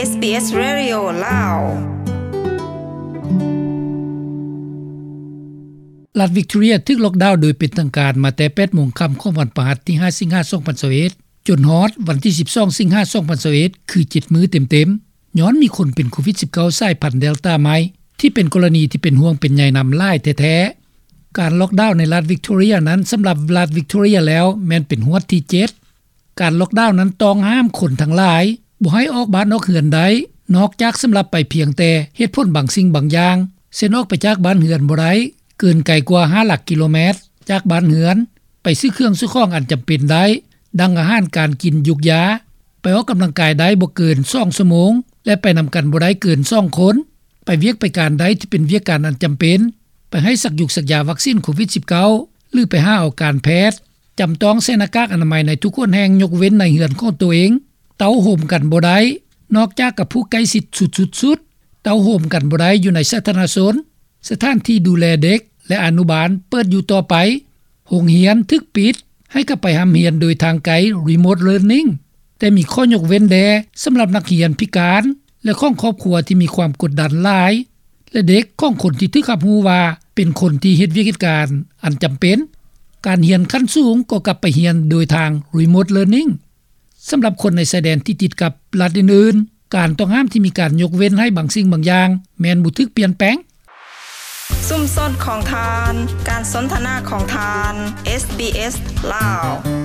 ເອສບີເອສ Radio ລາວ. ລັດວິກຕໍເຣັຍຖືກລັອກດາວໂດຍເປັນທາງການມາແຕ່ ແປດໂມງຄ່ຳຂອງວັນພະຫັດທີຫ້າ ສິງຫາ ສອງພັນຊາວເອັດ ຈົນຮອດວັນທີສິບສອງ ສິງຫາ ສອງພັນຊາວເອັດ ຄືເຈັດມື້ເຕັມໆ ຍ້ອນມີຄົນເປັນໂຄວິດສິບເກົ້າ ສາຍພັນເດລຕາໃໝ່ ທີ່ເປັນກໍລະນີທີ່ເປັນຫ່ວງເປັນໃຍນຳຫຼາຍແທ້ໆ. ການລັອກດາວໃນລັດວິກຕໍເຣັຍນັ້ນ ສຳລັບລັດວິກຕໍເຣັຍແລ້ວແມ່ນເປັນຮວດທີເຈັດ. ການລັອກດາວນັ້ນຕ້ອງຫ້າມຄົນທັງຫຼາຍບໍ່ໃຫ້ອອກບ້ານອອກເຮືອນໄດ້ ນອກຈາກສຳລັບໄປພຽງແຕ່ເຫດຜົນບາງສິ່ງບາງຢ່າງ ເຊັ່ນອອກໄປຈາກບ້ານເຮືອນບໍ່ໄດ້ເກີນໄກກວ່າຫ້າຫຼັກກິໂລແມັດຈາກບ້ານເຮືອນ, ໄປຊື້ເຄື່ອງຊື້ຂອງອັນຈຳເປັນໄດ້ ດັ່ງອາຫານການກິນ, ຢູກຢາ, ໄປອອກກຳລັງກາຍໄດ້ບໍ່ເກີນສອງຊົ່ວໂມງ ແລະ ໄປນຳກັນບໍ່ໄດ້ເກີນສອງຄົນ, ໄປວຽກໄປການໄດ້ທີ່ເປັນວຽກການອັນຈຳເປັນ, ໄປໃຫ້ສັກຢູກສັກຢາວັກຊີນໂຄວິດສິບເກົ້າ ຫຼື ໄປຫາເອົາການແພດ, ຈຳຕ້ອງໃສ່ໜ້າກາກອະນາໄມໃນທຸກຫົນແຫ່ງ ຍົກເວັ້ນໃນເຮືອນຂອງໂຕເອງ, ເຕົ້າໂຮມກັນບໍ່ໄດ້ ນອກຈາກກັບຜູ້ໃກ້ຊິດສຸດໆ, ເຕົ້າໂຮມກັນບໍ່ໄດ້ຢູ່ໃນສາທາລະນະຊົນ, ສະຖານທີ່ດູແລເດັກ ແລະ ອະນຸບານເປີດຢູ່ຕໍ່ໄປ, ໂຮງຮຽນຖືກປິດ ໃຫ້ກັບໄປຮ່ຳຮຽນໂດຍທາງໄກ Remote Learning ແຕ່ມີຂໍ້ຍົກເວັ້ນແດ່ສຳລັບນັກຮຽນພິການ ແລະ ຂອງຄອບຄົວທີ່ມີຄວາມກົດດັນຫຼາຍ ແລະ ເດັກຂອງຄົນທີ່ຖືກຮັບຮູ້ວ່າເປັນຄົນທີ່ເຮັດວຽກເຮັດການອັນຈຳເປັນ. ການຮຽນຂັ້ນສູງກໍກັບໄປຮຽນໂດຍທາງ Remote Learning. ສຳລັບຄົນໃນຊາຍແດນທີ່ຕິດກັບລັດອື່ນໆ, ການຕ້ອງຫ້າມທີ່ມີການຍົກເວັ້ນໃຫ້ບາງສິ່ງບາງຢ່າງ ແມ່ນບໍ່ຖືກປ່ຽນແປງ. ຊຸມຊົນຂອງທ່ານ, ການສົນທະນາຂອງທ່ານ ເອສບີເອສ ລາວ.